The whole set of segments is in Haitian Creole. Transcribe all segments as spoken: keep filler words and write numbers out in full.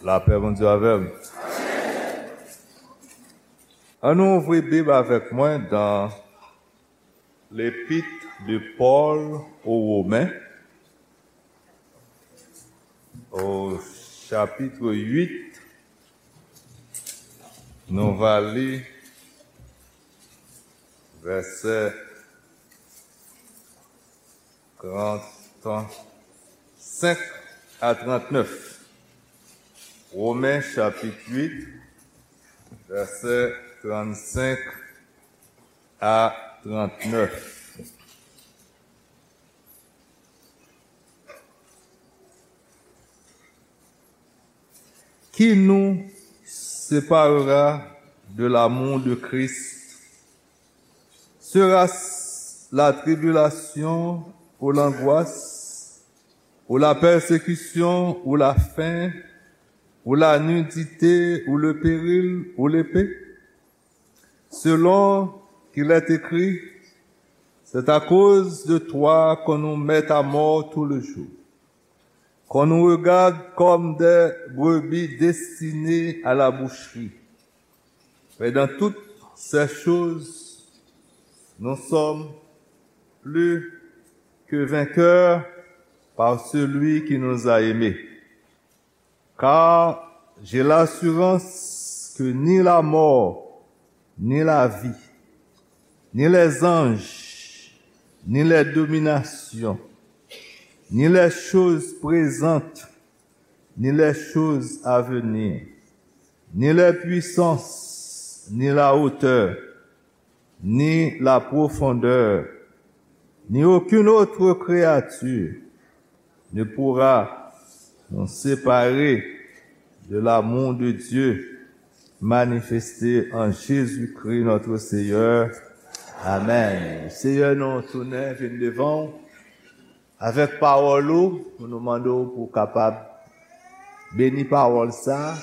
Lapè Bondye avè w. Ann nou ouvri Bib avèk mwen dans l'épître de Paul aux Romains, au chapitre huit. Nou va li vèsè trente-cinq à trente-neuf. Romains chapitre huit, versets trente-cinq à trente-neuf. Qui nous séparera de l'amour de Christ? Sera-ce la tribulation ou l'angoisse, ou la persécution, ou la faim, ou la nudité, ou le péril, ou l'épée? Selon qu'il est écrit, c'est à cause de toi qu'on nous met à mort tout le jour, qu'on nous regarde comme des brebis destinées à la boucherie. Mais dans toutes ces choses, nous sommes plus que vainqueurs par celui qui nous a aimés. Car j'ai l'assurance que ni la mort, ni la vie, ni les anges, ni les dominations, ni les choses présentes, ni les choses à venir, ni les puissances, ni la hauteur, ni la profondeur, ni aucune autre créature ne pourra nous séparer de l'amour de Dieu manifesté en Jésus-Christ notre Seigneur. Amen. Seyè, nou tounen vin devan w avèk pawòl ou, pou nou mande w pou w kapab beni pawòl sa a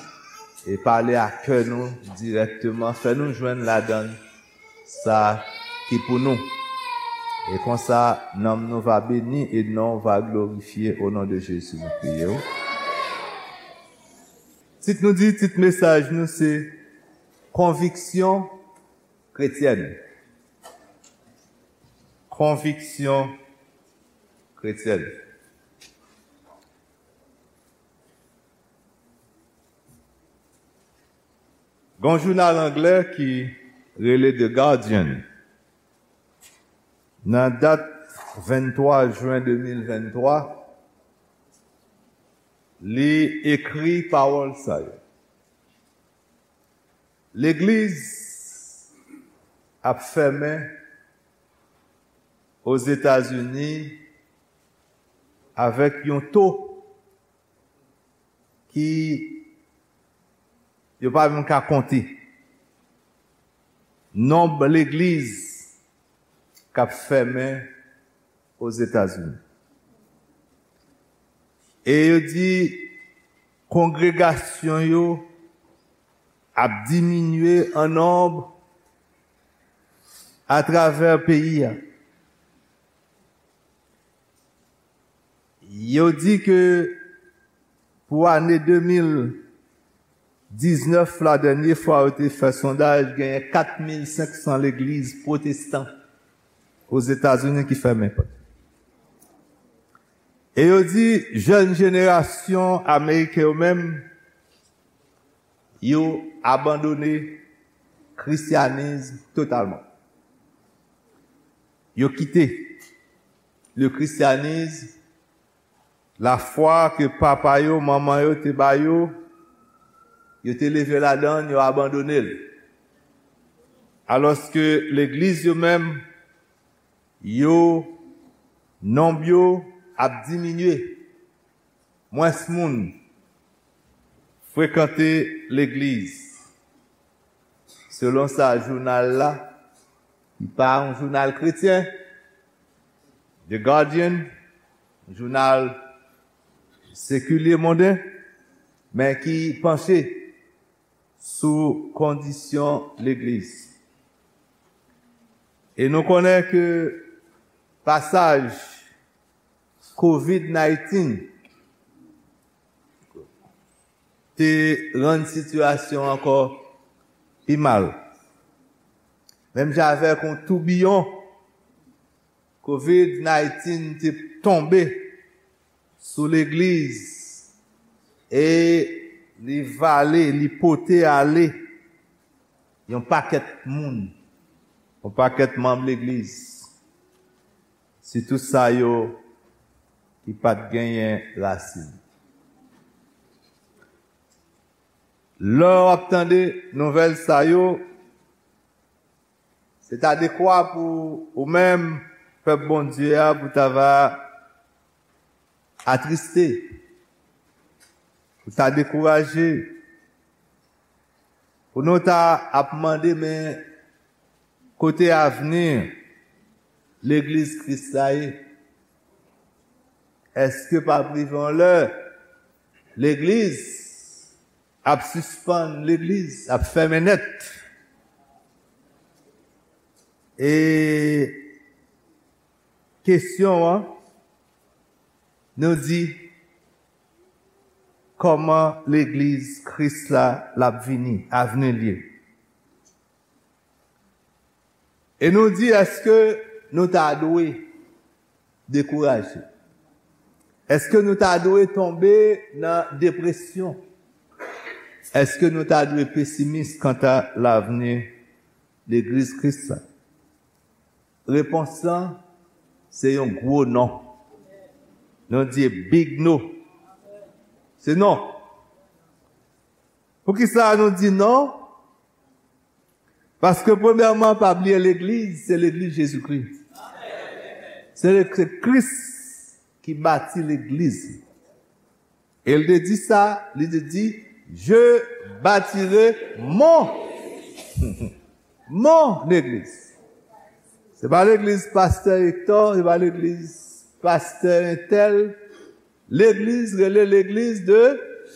e pale a kè nou dirèkteman, fè nou jwenn ladan sa ki pou nou. E konsa, nanm nou va beni e non w va glorifye. O non de Jezi, nou priye w. Tit nou di, tit mesaj nou se Konviksyon kretyèn. Konviksyon kretyèn. Gon jounal anglè ki rele The Guardian. Nan dat venntwa jen de mil venntwa, li ekri pawòl sa yo. Legliz ap fèmen Ozetazini avèk yon to ki yo pa menm ka konte. Nonb legliz k ap fèmen Ozetazini. E yo di kongregasyon yo ap diminye an nonb atravè peyi a. Yo di ke pou ane de mil diznèf la, dènye fwa yo te fè sondaj, genyen kat mil senk san legliz pwotestan Ozetazini ki fèmen pòt. E yo di jèn jenerasyon ameriken yo menm, yo abandone kristyanis totalman. Yo kite le christianisme, lafwa ke papa yo, manman yo te ba yo, yo te leve ladan l, yo abandone l. Alòske legliz yo menm, yo, nonb yo ap diminye. Mwens moun frekante legliz. Selon sa jounal la, ki pa yon jounal kretyen, The Guardian, jounal sekilye monden, men ki panche sou kondisyon legliz. E nou konnen ke pasaj covid nineteen te rann sitiyasyon ankò pi mal. Menm jan avèk yon toubiyon, kovid diznèf te tonbe sou legliz e li vale, li pote ale yon pakèt moun, yon pakèt manm legliz, sitou sa yo ki pa t genyen rasin. Lè w ap tande nouvèl sa yo, se ta dekwa pou ou menm, pèp Bondye a, pou ta va atriste, pou ta dekouraje, pou nou ta ap mande, men kote avni legliz Kris la ye? Èske p ap rive yon lè legliz ap sispann legliz, ap fèmen nèt? E kesyon an, nou di, kòman legliz Kris la, l ap vini, avni l ye? E nou di, èske nou ta dwe dekouraje? Èske nou ta dwe tonbe nan depresyon? Èske nou ta dwe pesimis kanta lavni legliz Kris la? Repons lan, se yon gwo non. Nou di big no. Se non. Poukisa nou di non? Paske premyèman, pa bliye legliz, se legliz Jezikri. Se le-, se Kris ki bati legliz. E l te di sa, li te di, je bâtirai mon, mon église. Se pa legliz pastè Hector, se pa legliz pastè entèl. Legliz rele legliz de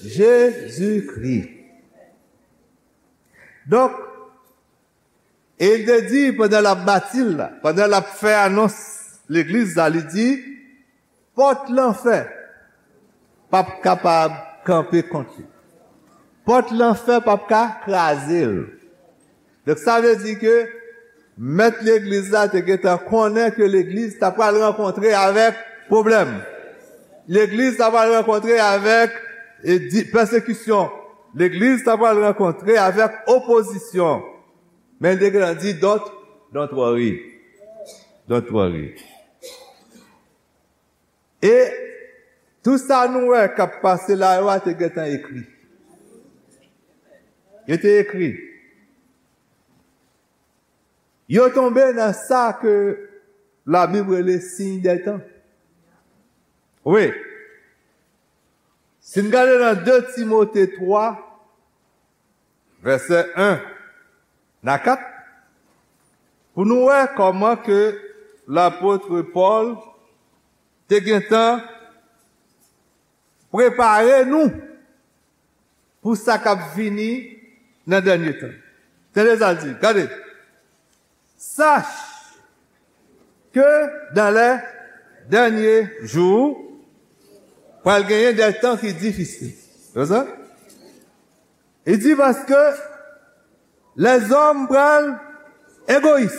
Jezikri. Donk, e l te di, pandan l ap bati l la, pandan l ap fè anons legliz la, li di, pòt lanfè p ap kapab kanpe kont li. Pòt lanfè p ap ka kraze l. Donk, sa vle di ke mèt legliz la te gentan konnen ke legliz ta pral rankontre avèk pwoblèm. Legliz ta pral rankontre avèk, e, di-, pèsekisyon. Legliz ta pral rankontre avèk opozisyon. Men l te gentan di, don't, don't worry. Don't worry. E tout sa nou wè k ap pase la yo a te gentan ekri. Yo te ekri. Yo tonbe nan sa ke Labib rele siy dè tan. Wi. Si n gade nan de Timote twa, vèsè en a kat, pou nou wè kòman ke lapot Pòl te gentan prepare nou pou sa k ap vini nan dènye tan. Tande sa l di, gade. Sache que dans les derniers jours, pral genyen de tan ki difisil. Wè sa? Li di, paske lèzòm pral egoyis.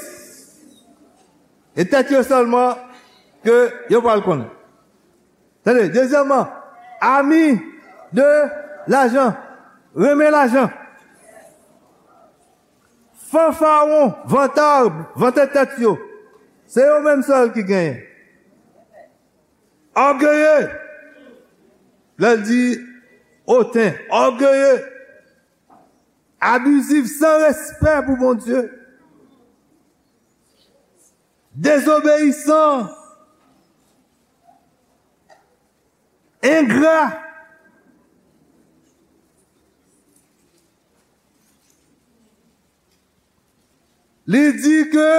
E tèt yo sèlman ke yo pral konnen. Tande, dezyèmman, ami de lajan, renmen lajan. Fanfaron, vantard, vante tèt yo. Se yo menm sèl ki genyen. Ògeye. Lè l di oten, ògeye. Abizif, san respè pou Bondye. Dezobeyisan. Engra. Li di ke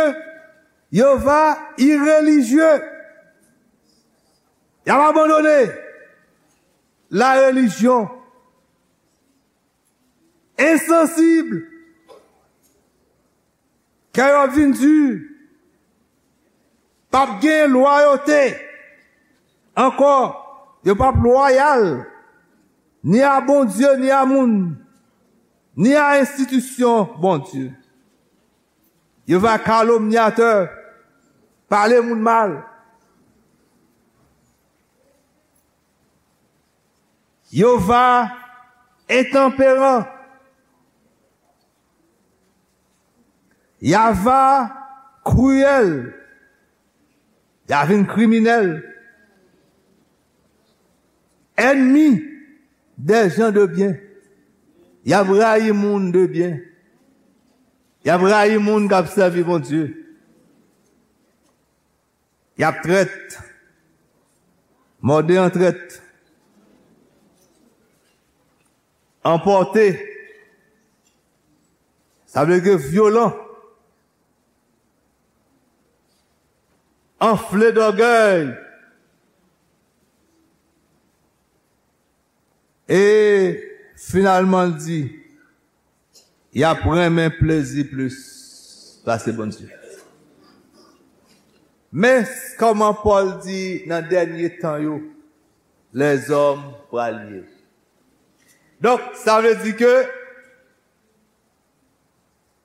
yo va irelijye. Y ap abandone la relijyon. Ensansib. Kè yo ap vin di. P ap gen lwayote ankò. Yo p ap lwayal. ni a Bondye, ni a moun, ni a enstitisyon Bondye. Yo va kalomnyatè, pale moun mal. Yo va entanperan. Y a va kriyèl. Y a vin kriminèl. Ènmi dè jan de byen. Y ap rayi moun de byen. Y ap rayi moun k ap sèvi Bondye. Y ap trèt. Mòde an trèt. Anpòte. Sa vle di vyolan. Anfle dògèy. E finalman, l di, y ap renmen plezi plis pase Bondye. Men kòman Pòl di nan dènye tan yo, lèzòm pral ye. Donk, sa vle di ke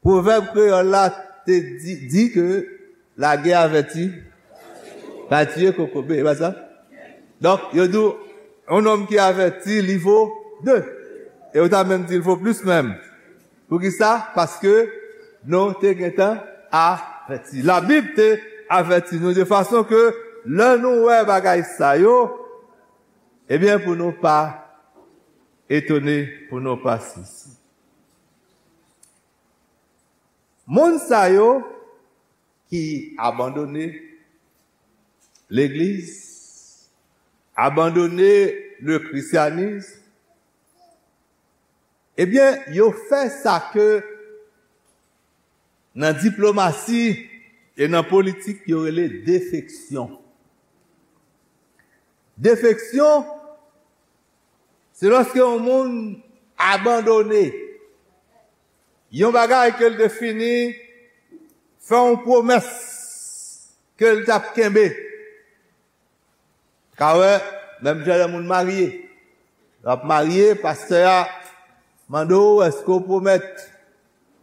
pwovèb kreyòl la te di, di ke lagè avèti pa tiye kokobe, e pa sa? Donk, yo di w, yon nonm ki avèti, li vo de. E yo ta menm di l vo plis menm. Poukisa? Paske nou te gentan avèti. Labib te avèti nou de fason ke lè nou wè bagay sa yo, ebyen, pou nou pa etone, pou nou pa sezi. Moun sa yo ki abandone legliz, abandone le christianisme, ebyen, yo fè sa ke nan diplomasi e nan politik yo rele defeksyon. Defeksyon, se lòske yon moun abandone yon bagay ke l te fini fè yon pwomès ke l t ap kenbe. Ka wè, menm jan lè moun marye. W ap marye, pastè a mande w, èske w pwomèt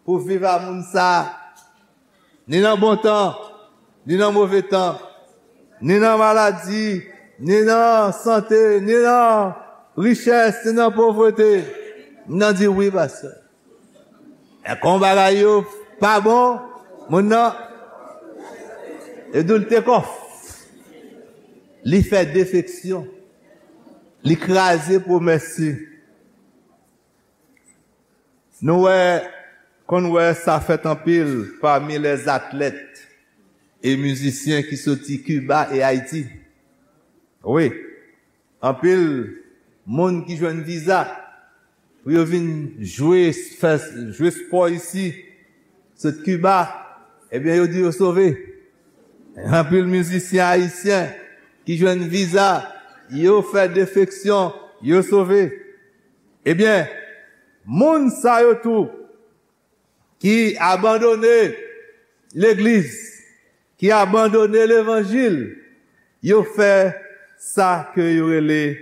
pou w viv a moun sa a, ni nan bon tan, ni nan move tan, ni nan maladi, ni nan sante, ni nan richès, ni nan povrete? Moun nan di, wi, pastè. E kon bagay yo pa bon, moun nan, yo di l take off. Li fè defeksyon. Li kraze pwomès li. Nou wè, konn wè sa fèt anpil pami lèzatlèt e mizisyen ki soti Kiba e Ayiti. Wi, anpil moun ki jwenn viza pou yo vin jwe, fè, jwe spò isi, sot Kiba, ebyen, yo di yo sove. Anpil mizisyen ayisyen ki jwenn viza, yo fè defeksyon, yo sove. Ebyen, moun sa yo tou ki abandone legliz, ki abandone levanjil, yo fè sa ke yo rele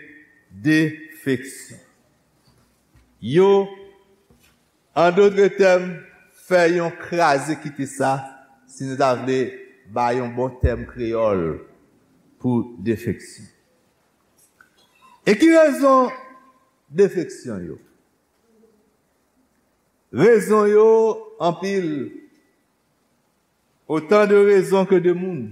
defeksyon. Yo, an dòt tèm, fè yon kraze kite sa, si nou ta vle bay yon bon tèm kreyòl pou defeksyon. E ki rezon defeksyon yo? Rezon yo anpil. Autant de raisons que de moun.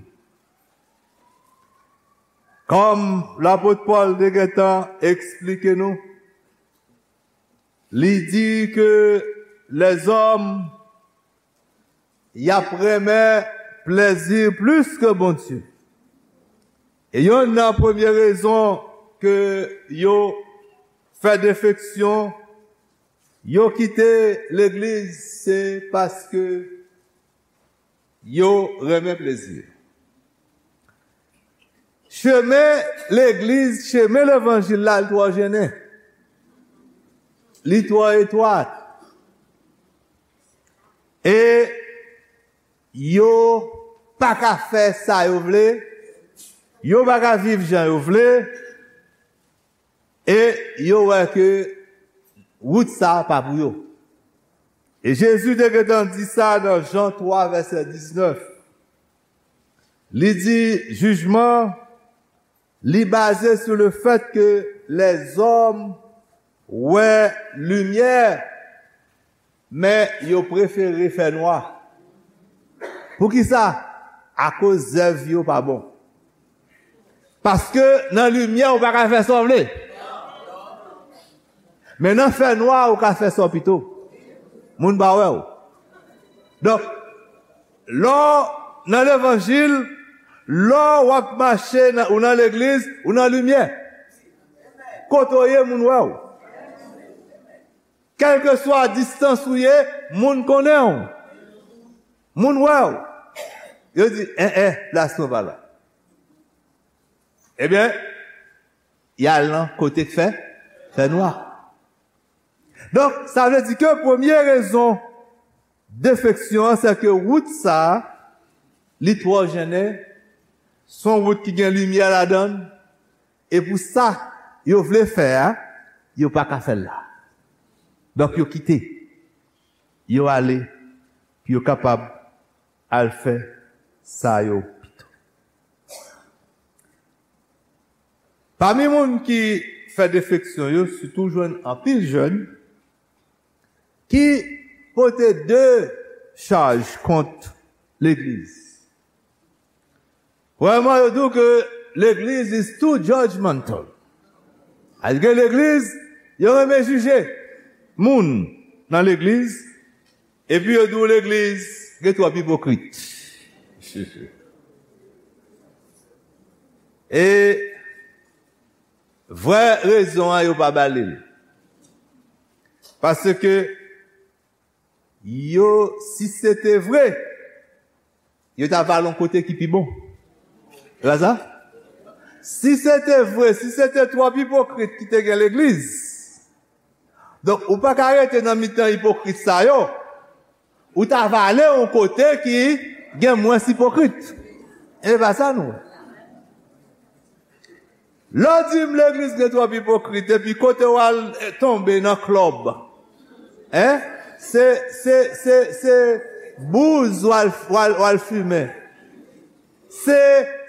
Kòm lapot Pòl te gentan eksplike nou, li di ke lèzòm, y ap renmen plezi plis ke Bondye. E yonn nan premye rezon ke yo fè defeksyon, yo kite legliz, se paske yo renmen plezi. Chemen legliz, chemen levanjil la, li twò jennen. Li twò etwat. E yo pa ka fè sa yo vle. Yo pa ka viv jan yo vle. E yo wè ke wout sa a pa pou yo. E Jezi te gentan di sa nan Jan twa, vèsè diznèf. Li di, jijman, li baze sou le fèt ke lèzòm wè limyè, men yo prefere fènwa. Poukisa? Akoz zèv yo pa bon. Paske nan limyè, ou pa ka fè sa w vle. Men nan fènwa, ou ka fè sa w pito. Moun pa wè w. Donk, lè w nan levanjil, lè w ap mache, nan, ou nan legliz, ou nan limyè. Kote w ye, moun wè w. Kèlkeswa distans ou ye, moun konnen w. Moun wè w. Yo di, en, en, plas mwen pa la. Ebyen, y al nan kote k fè, fè nwa. Donk, sa vle di ke premye rezon defeksyon an, se ke wout sa a, li twò jennen, se yon wout ki gen limyè ladan l, e pou sa yo vle fè a, yo pa ka fè l la. Donk, yo kite, yo ale, pou yo kapab al fè sa yo pito. Pami moun ki fè defeksyon yo, sitou jwenn anpil jèn ki pote de chaj kont legliz. Premyèman, yo di w ke legliz is too judgmental. Alòske legliz, yo renmen jije moun nan legliz, epi yo di w legliz gen twòp ipokrit. E vrè rezon an, yo pa ba li l. Paske yo, si se te vre, yo ta va al yon kote ki pi bon. E pa sa? Si se te vre, si se te twòp ipokrit ki te gen legliz, donk, ou pa ka rete nan mitan ipokrit sa yo, ou ta va ale yon kote ki gen mwens ipokrit. E pa sa nou. Lè w di m legliz gen twòp ipokrit, epi kote w al, eh, tonbe nan klòb. Hein? Se, se, se, se bouz w al, w al, w al fimen. Se,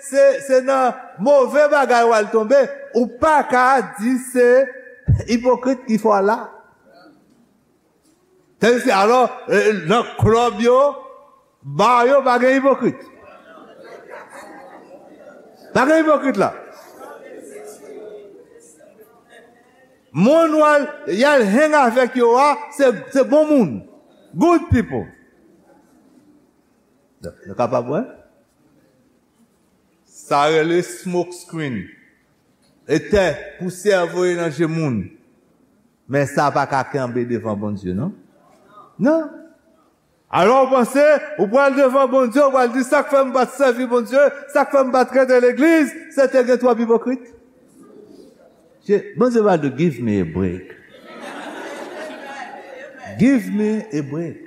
se, se nan move bagay w al tonbe. Ou pa ka di se ipokrit ki fè w la. Tandis ke, alò, eh, nan klòb yo, ba yo, pa gen ipokrit. Pa gen ipokrit la. Moun w al, y al hang avèk yo a, se, se bon moun. Good people. Nou kapab wè? Sa rele smoke screen. E tè, pousyè voye nan je moun. Men sa pa ka kenbe devan Bondye, non? Non. Alò, ou panse, ou pral devan Bondye, ou pral di, "Sa k fè m pa t sèvi Bondye, sa k fè m pa t rete legliz, se te gen twòp ipokrit." Je-, Bondye va di, "Give me a break. Give me a break."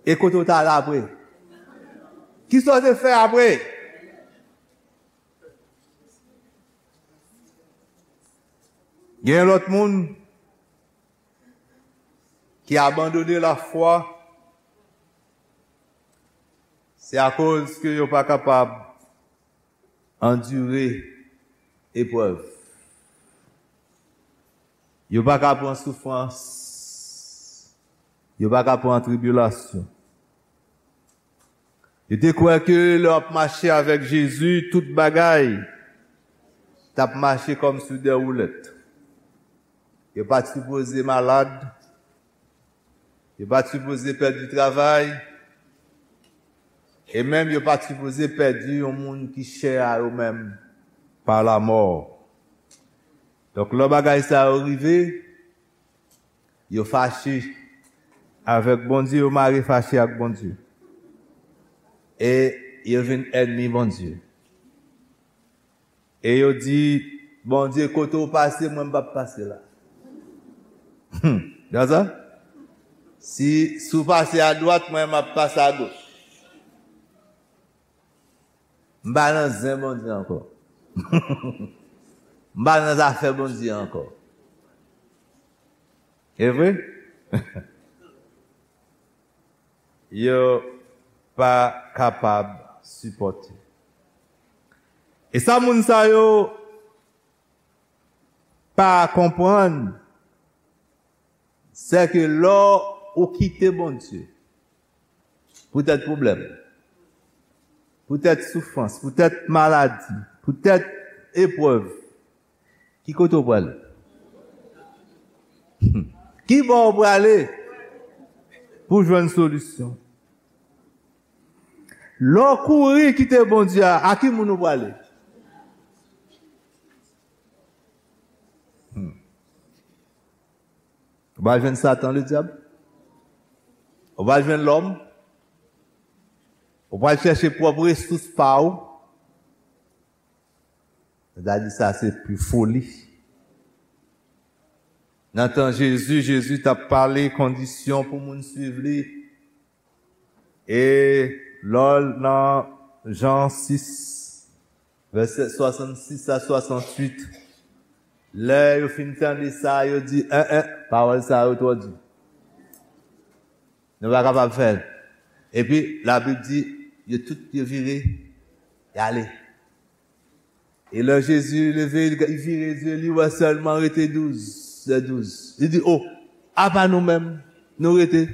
E kote w t al apre? Kisa w te fè apre? Gen lòt moun ki abandone lafwa, se akoz ke yo pa kapab andire eprèv. Yo pa ka pran soufrans. Yo pa ka pran tribilasyon. Yo te kwè ke lè w ap mache avèk Jezi, tout bagay t ap mache kòm sou dè woulèt. Yo pa t sipoze malad. Yo pa t sipoze pèdi travay. E menm yo pa t sipoze pèdi yon moun ki chè a yo menm pa lamò. Donk, lè bagay sa yo rive, yo fache avèk Bondye, yo mare fache ak Bondye. E yo vin ènmi Bondye. E yo di, "Bondye, kote w pase, mwen m p ap pase la." Hmm. Gade sa? Si, si w pase adwat, mwen m ap pase agoch. M pa nan zen Bondye ankò. M pa nan zafè Bondye ankò. E vre? Yo pa kapab sipòte. E sa moun sa yo pa konprann, se ke lè ou kite Bondye, poutèt pwoblèm, poutèt soufrans, poutèt maladi, poutèt eprèv, ki kote w prale? Ki bò w prale pou jwenn solisyon? Lè w kouri kite Bondye a, a ki moun ou prale? Hmm. Ou pral jwenn Satan, ledyab? Ou pral jwenn lòm? Ou pral chèche pwòp resous pa ou? Sa di sa se pi foli. Nan tan Jezi, Jezi t ap pale kondisyon pou moun swiv li. E lè w nan Jan sis, vèsè swasannsis a swasannwit, lè yo fin tande sa, yo di, en, en, pawòl sa yo twò di. Nou pa kapab fè l. Epi, Labib di, yo tout, yo vire, y ale. E lè Jezi leve, li vire zye li, wè sèlman rete douz, lè douz. Li di, o, apa nou menm, nou rete?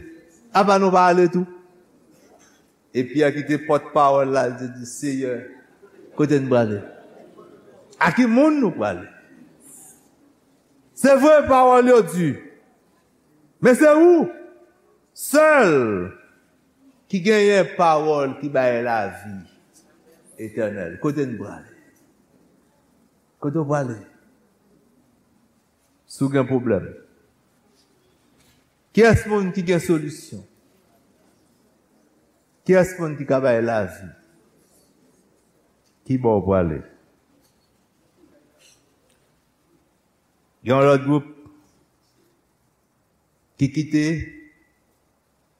Apa nou pa ale tou? E Pyè ki te pòtpawòl la, li te di, Seyè, kote n prale? A ki moun nou prale? Se vre, pawòl yo di, men se ou sèl ki genyen pawòl ki bay lavi etènèl. Kote n prale? Kote w prale? Si w gen pwoblèm, kiyès moun ki gen solisyon? Kiyès moun ki ka bay lavi? Ki bò w prale? Gen yon lòt gwoup ki kite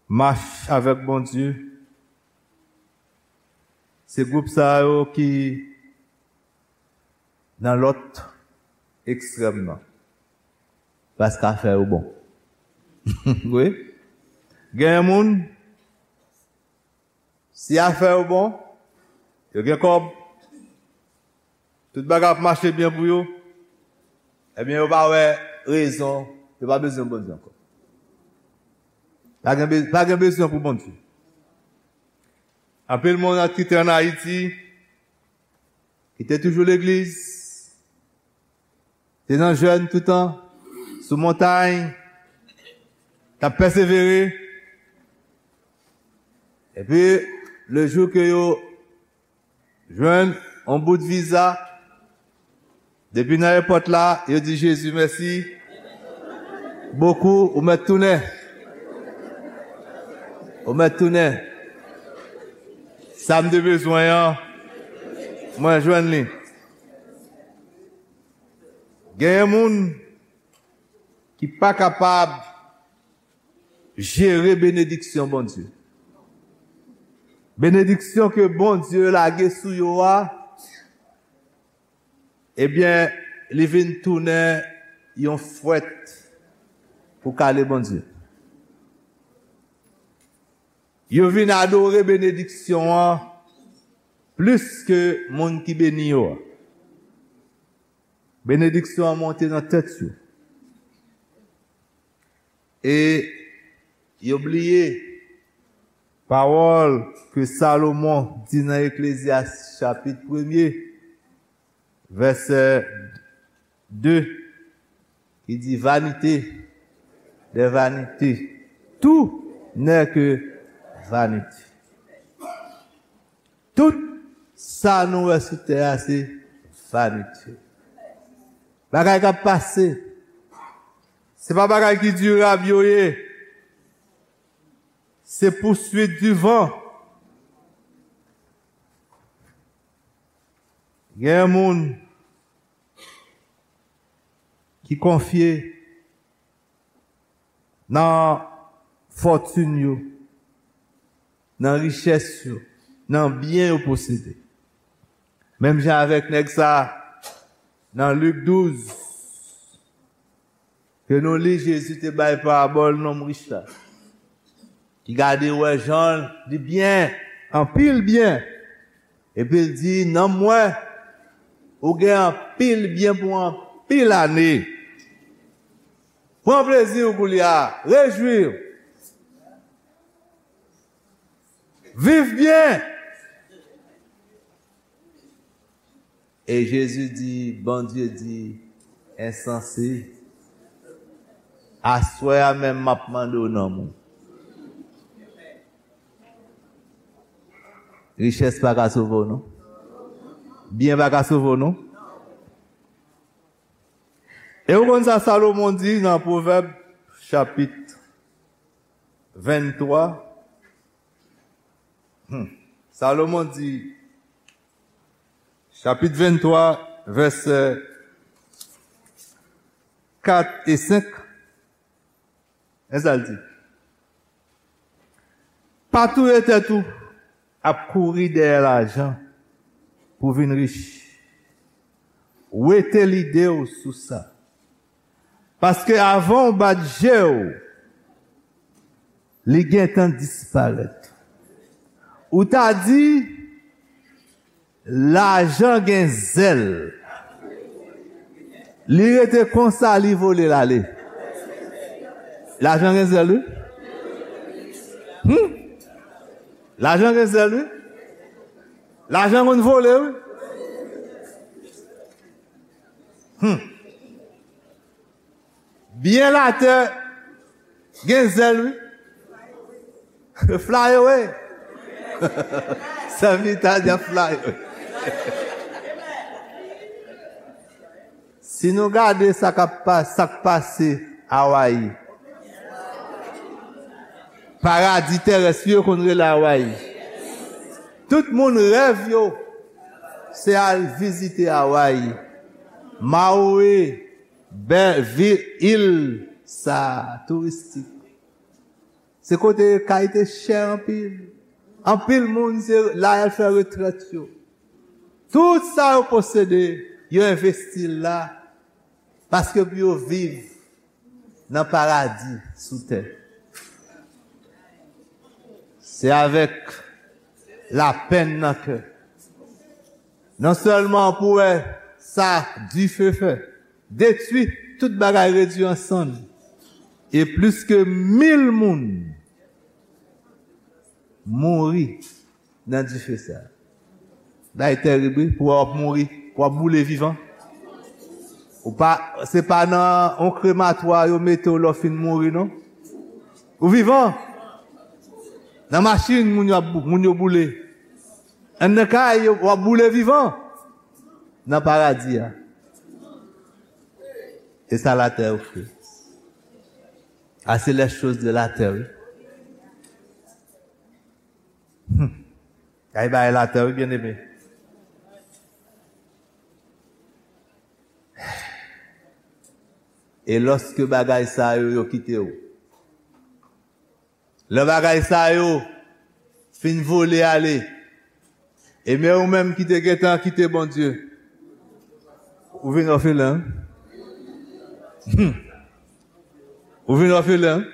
mach avèk Bondye. Se gwoup sa yo ki nan lòt ekstrèm nan. Paske afè yo bon. Wi. Gen moun, si afè yo bon, yo gen kòb, tout bagay ap mache byen pou yo, ebyen, yo pa wè rezon, yo pa bezwen Bondye ankò. Pa gen be-, pa gen bezwen pou Bondye. Anpil moun ki te ann Ayiti, ki te toujou legliz, te nan jèn toutan, sou montay, t ap pèsevere. Epi, le jou ke yo jwenn yon bout viza, depi nan èpòt la, yo di Jezi mèsi bokou, ou mèt tounen. Ou mèt tounen. Sa m te bezwen an, mwen jwenn li. Genyen moun ki pa kapab jere benediksyon Bondye. Benediksyon ke Bondye lage sou yo a, ebyen, li vin tounen yon fwèt pou kale Bondye. Yo vin adore benediksyon an plis ke moun ki beni yo a. Benediksyon an monte nan tèt yo. E yo bliye pawòl ke Salomon di nan Eklezyas chapit premye, vèsè de, ki di, vanité des vanités, tout n'est que vanité. Tout sa nou wè sou tè a, se vanite. Bagay k ap pase. Se pa bagay ki dirab yo ye. Se poursuite du vent. Gen moun ki konfye nan fòtin yo, nan richès yo, nan byen yo posede. Menm jan avèk nèg sa, Nan Lik douz, ke nou li, Jezi te bay parabòl nonm rich la, ki gade wè jan li byen, anpil byen. Epi l di, "Nonm mwen, ou gen anpil byen pou anpil ane. Pran plezi w koulye a, rejwi w. Viv byen." E Jezi di, Bondye di, "Ensanse, aswè a menm m ap mande w nonm ou." Richès pa ka sove w, non. Byen pa ka sove w, non. E ou konn sa Salomon di nan Pwovèb, chapit venntwa? Hmm. Salomon di, chapit venntwa, vèsè kat e senk. Men sa l di, "Pa touye tèt ou ap kouri dèyè lajan pou vin rich. Wete lide w sou sa. Paske avan w bat je w, li gentan disparèt." Ou ta di, "Lajan gen zèl." Li rete konsa, li vole l ale. Lajan gen zèl, wi. Hmm. Lajan gen zèl, wi. Lajan konn vole, wi. Hmm. Byen latè gen zèl, wi. Fly away. Sèvitè a di ap fly away. Si nou gade sa k ap pa-, sa k pase Awayi, paradi terès yo konn rele Awayi. Tout moun rèv yo se al vizite Awayi. Maui, bèl vil, il sa touristik. Se kote kay te chè anpil. Anpil moun se la y al fè retrèt yo. Tout sa yo posede, yo envesti l la paske pou yo viv nan paradi sou tè. Se avèk lapenn nan kè. Non sèlman pou wè sa dife fè, detwi, tout bagay redwi an sann. E plis ke mil moun mouri nan dife sa. Bagay tèrib, wi, pou w ap mouri, pou w ap boule vivan. Ou pa, se pa nan yon krematwa yo mete w lè w fin mouri, non. Ou vivan. Nan machin, moun yo ap bou-, moun yo boule. Anndan kay, yo, w ap boule vivan. Nan paradi a. E sa latè ofri. Ah, c'est les choses de la terre, wi. Hmm. Kay bagay latè, wi, byeneme. E lòske bagay sa yo, yo kite w, lè bagay sa yo fin vole ale, e men ou menm ki te gentan kite Bondye, ou vin òfelen. Hmm. Ou vin òfelen.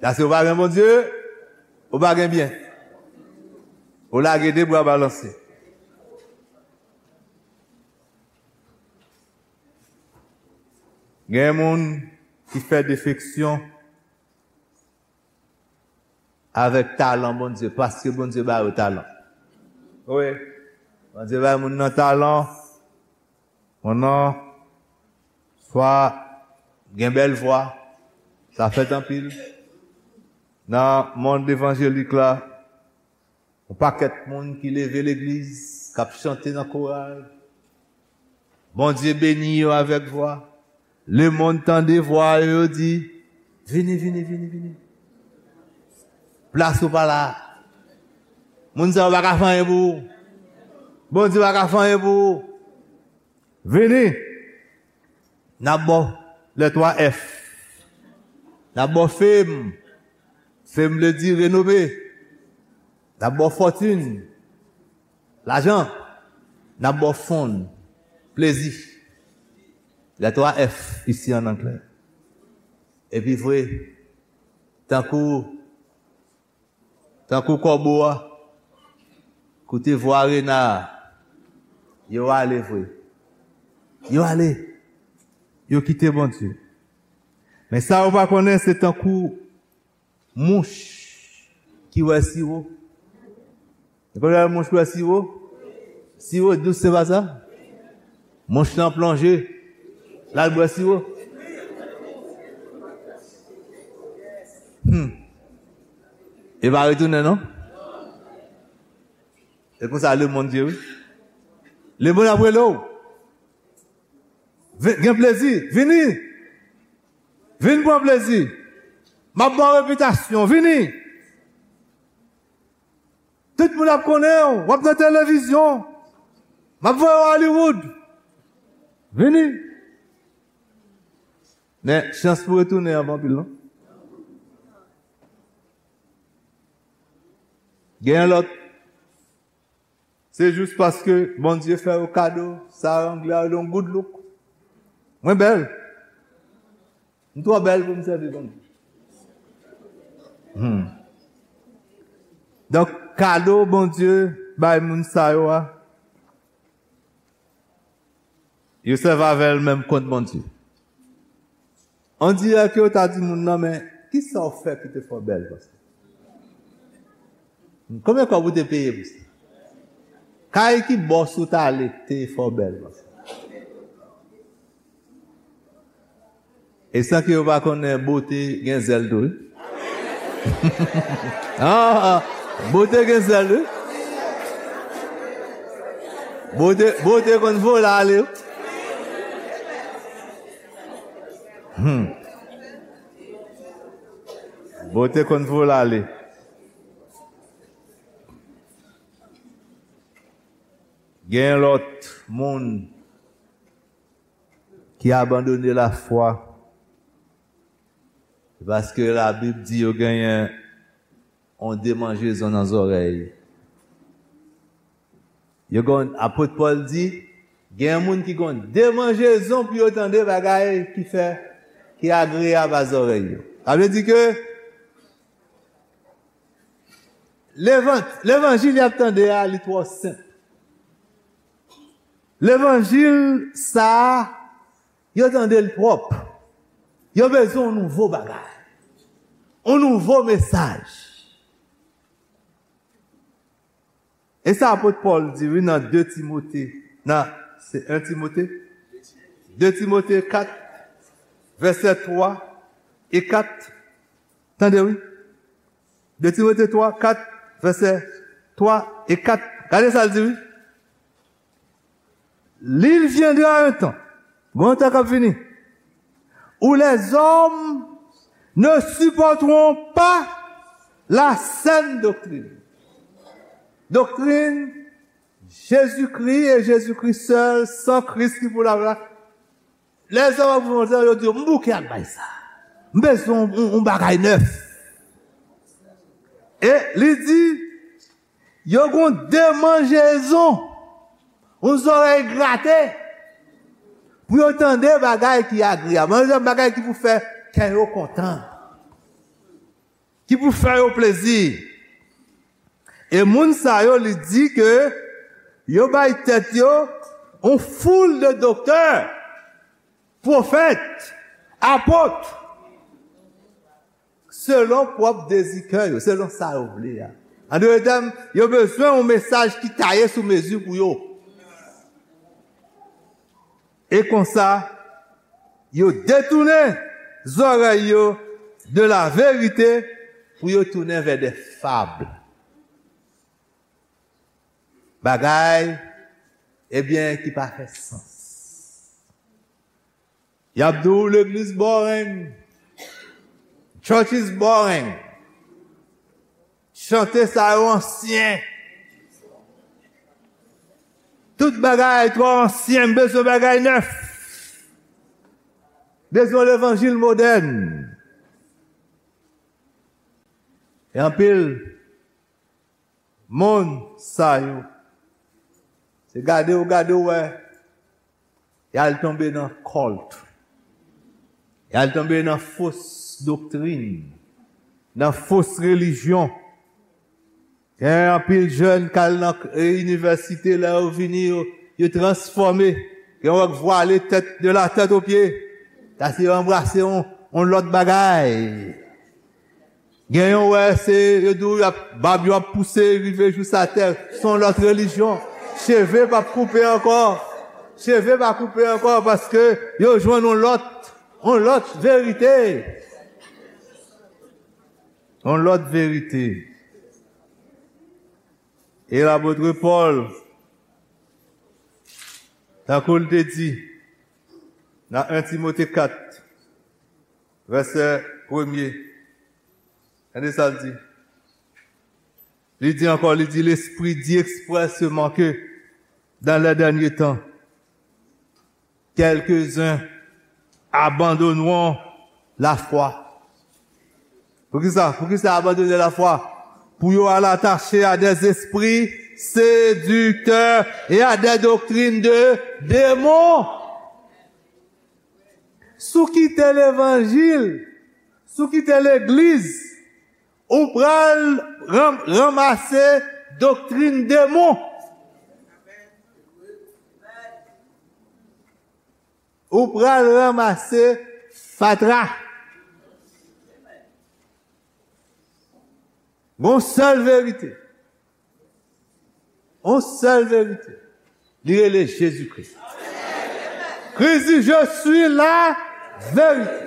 Paske ou pa gen Bondye, ou pa gen byen. Ou lage de bra balanse. Gen moun ki fè defeksyon avèk talan Bondye, paske Bondye ba yo talan. Wi. Bondye bay moun nan talan, moun nan swa gen bèl vwa, sa fèt anpil. Nan mond evanjelik la, yon pakèt moun ki leve legliz, k ap chante nan koral. Bondye beni yo avèk vwa. Lemonn tande vwa yo, yo di, "Vini, vini, vini, vini. Plas ou pa la. Moun sa yo pa ka fè anyen pou ou. Bondye pa ka fè anyen pou ou. Vini." N ap ba w les trois F. N ap ba w fame. Fame vle di renome. N ap ba w fortune. Lajan. N ap ba w fun. Plezi. Les trois F isi an anglè. Epi vre, tankou, tankou kòbo a, koute vwa rena a, yo ale vre. Yo ale. Yo kite Bondye. Men sa yo pa konnen, se tankou mouch ki wè siwo. Ou konn lè mouch wè siwo? Siwo dous, se pa sa? Mouch lan plonje, l al bwè siwo. Hmm. E pa retounen, non? E konsa lemonn ye, wi. Lemonn ap rele w. Vin, gen plezi, vini. Vin pran plezi. M ap ba w repitasyon, vini. Tout moun ap konnen w, w ap nan televizyon. M ap voye w Hollywood. Vini. Men, chans pou retounen an pa anpil, non? Gen lòt. Se jis paske Bondye fè yo kado, sa anglè a rele yon good look. Mwen bèl. M twò bèl pou m sèvi Bondye. Hmm. Donk, kado Bondye bay moun sa yo a, yo sèvi avè l menm kont Bondye. On dirè ke yo ta di moun nan, men kisa w fè ki te fè w bèl konsa? Konbyen kòb ou te peye pou sa? Kay ki bòs ou t ale te fè w bèl konsa? E san ke yo pa konnen, bote gen zèl tou, wi. Ah, ah, bote gen zèl, wi. Bote, bote konn vole ale, wi. Hmm. Bote konn vole ale. Gen lòt moun ki abandone lafwa, paske Labib di yo genyen yon demanjezon nan zòrèy. Yo gon, apot Pòl di, gen moun ki gon demanjezon pou yo tande bagay ki fè, ki agreyab a zòrèy yo. Sa vle di ke levan-, levanjil y ap tande a, li twò senp. Levanjil sa a, yo tande l twòp. Yo bezwen yon nouvo bagay. Yon nouvo mesaj. E sa apot Pòl di, wi, nan de Timote, nan, se en Timote? De Timote kat, vèsè twa e kat. Tande, wi. De Timote twa, kat, vèsè twa e kat. Gade sa l di, wi. Il viendra un temps, gon tan k ap vini, où les hommes ne supporteront pas la saine doctrine. Doktrin Jezikri e Jezikri sèl, san Kris ki pou la, la. Lèzòm ap vin, yo di, "M bouke ak bay sa. M bezwen yon, yon, yon bagay nèf." E li di, yo gon demanjezon, yon zòrèy grate, pou yo tande bagay ki agreyab, yon bagay ki pou fè kè yo kontan, ki pou fè yo plezi. E moun sa yo, li di ke yo bay tèt yo yon foul de doktè, pwofèt, apot, selon pwòp dezi kè yo, selon sa yo vle a. An dòt tèm, yo bezwen yon mesaj ki taye sou mezi pou yo. E konsa, yo detounen zòrèy yo de la verite pou yo tounen vè de fab. Bagay, ebyen, ki pa fè sans. Y ap di w legliz boring. Church is boring. Chante sa yo ansyen. Tout bagay twò ansyen, m bezwen bagay nèf. Bezwen levanjil modèn. E anpil moun sa yo, se gade w, gade w wè, Y al tonbe nan kòlt. Y al tonbe nan fos doktrin, nan fos relijyon. Gen anpil jèn k al nan k- e, inivèsite, lè yo vini, yo, yo transfòme. Gen wè k vwale tèt, de la tèt o pye. Sa se yo anbrase yon, yon lòt bagay. Gen yon wè se, yo di w, y ap, bab yo ap pouse, rive jous atè. Se yon lòt relijyon. Cheve p ap koupe ankò. Cheve p ap koupe ankò paske yo jwenn yon lòt, yon lòt verite. Yon lòt verite. E lapot Pòl, tankou l te di nan en Timote kat, vèsè premye, tande sa l di. Li di ankò, li di, Lespri di ekspresman ke dans les derniers temps, quelques-uns abandonneront la foi. Poukisa? Poukisa abandone lafwa? Pou yo al atache a des esprits séducteurs et à des doctrines de démons. Si w kite levanjil, si w kite legliz, ou pral ran- ranmase doktrin demon. Ou pral ranmase fatra. Gon sèl verite. On sèl verite. Li rele Jezikri. Kris di, Je suis la vérité.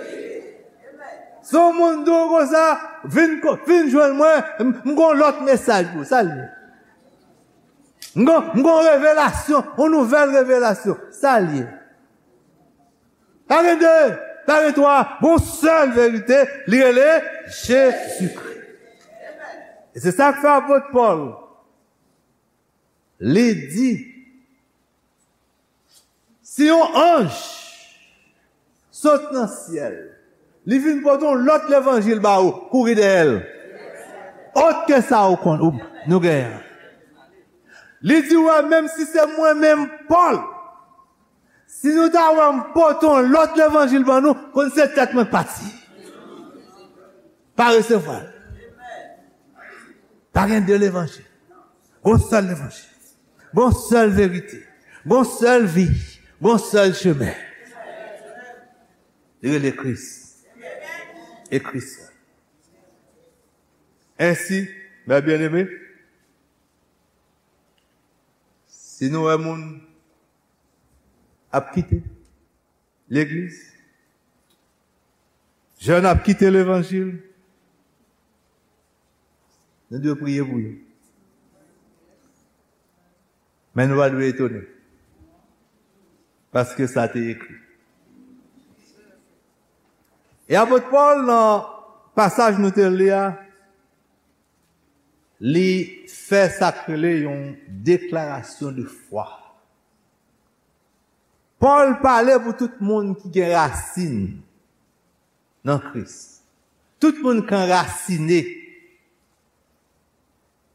Si yon moun di w konsa, vin, ko- vin jwenn mwen, m m gon lòt mesaj pou ou. Sa l ye? M gon, m gon revelasyon, yon nouvèl revelasyon. Sa l ye? Pa gen de, pa gen twa, gon sèl verite, li rele Jezikri. E se sa k fè apot Pòl, li di, si yon anj sot nan syèl, li vin pote yon lòt levanjil ba ou, kouri dèyè l. Ot ke sa ou konn, ou, nou genyen. Li di, wè, menm si se mwen menm, Pòl, si nou ta wè m pote yon lòt levanjil ban nou, konn se tèt mwen k pati. Pa resevwa l. Pa gen de levanjil. Gon sèl levanjil. Gon sèl verite. Gon sèl vi. Gon sèl chemen. Li rele Kris. E Kris la. Ensi, mes bien-aimés, si nou wè moun ap kite legliz, jèn ap kite levanjil, nou dwe priye pou yo. Men nou pa dwe etone, paske sa te ekri. E apot Pòl, nan pasaj nou te li a, li fè sa k rele yon deklarasyon de fwa. Pòl pale pou tout moun ki gen rasin nan Kris. Tout moun k anrasine.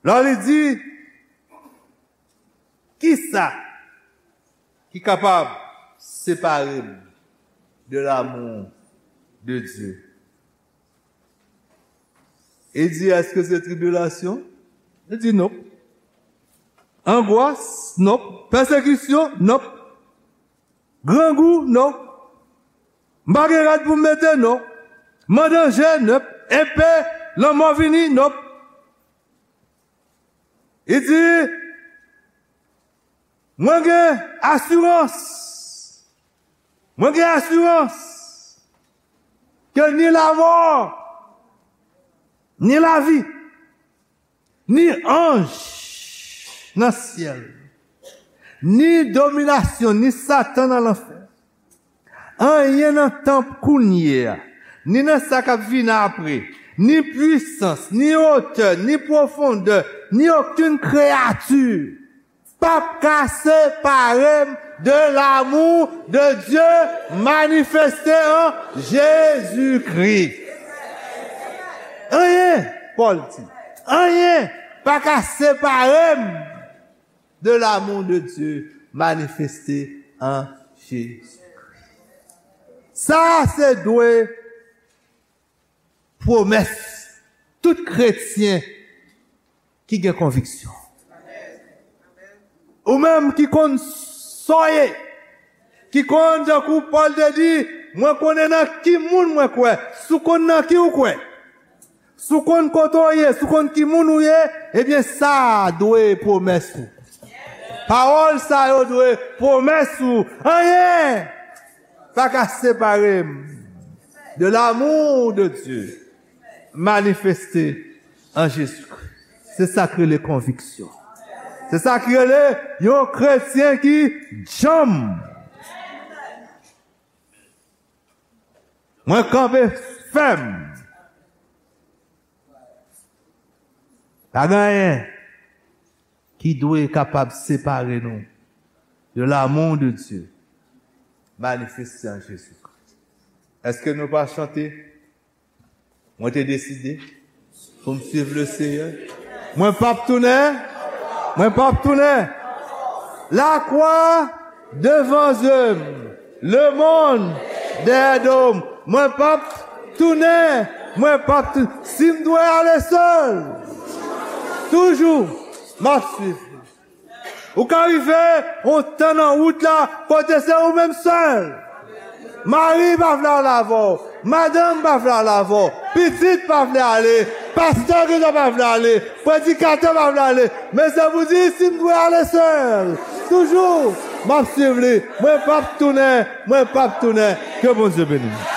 Lè li di, kisa ki kapab separe m de l'amour de Dieu? E di, èske se tribilasyon? Li di, non. Angwas? Non. Pèsekisyon? Non. Grangou? Non. M pa gen rad pou m mete? Non. Mandanje? Non. Epe, lanmò vini? Non. Li di, mwen gen asirans. Mwen gen asirans ke ni lamò, ni lavi, ni anj nan syèl, ni dominasyon, ni Satan nan lanfè, anyen nan tanp kounye a, ni nan sa k ap vin apre, ni pwisans, ni otè, ni pwofondè, ni okenn kreyati p ap ka separe m de l'amour de Dieu manifesté en Jésus-Christ. Anyen, Pòl di, anyen pa ka separe m de l'amour de Dieu manifesté en Sa se dwe pwomès tout kretyen ki gen konviksyon. Ou menm ki konn sa w ye, ki konn, tankou Pòl te di, mwen konnen nan ki moun mwen kwè. Si w konn nan ki w kwè, si w konn kote w ye, si w konn ki moun ou ye, ebyen sa a dwe pwomès ou. Pawòl sa yo dwe pwomès ou. Anyen pa ka separe m de l'amour de Dieu manifesté en Jésus-Christ. Se sa k rele konviksyon. Se sa k rele yon kretyen ki djanm. Mwen kanpe fèm. Pa gen anyen ki dwe kapab separe nou de l'amour de Dieu manifesté en Jésus-Christ. Èske nou pa chante? Mwen te deside pou m suiv le Seyè. Mwen p ap tounen. Mwen p ap tounen. Lakwa devan zye m. Lemonn dèyè do m. Mwen p ap tounen. Mwen p ap tou-, si m dwe ale sèl, toujou, m ap suiv li. Ou ka rive yon tan nan wout la, kote se ou menm sèl. Mari pa vle ale avè w. Madanm pa vle ale avè w. Pitit pa vle ale. Pastè gentan pa vle ale. Predikatè pa vle ale. Men se pou di, si m dwe ale sèl, toujou, m ap suiv li. Mwen p ap tounen. Mwen p ap tounen. Ke Bondye beni nou.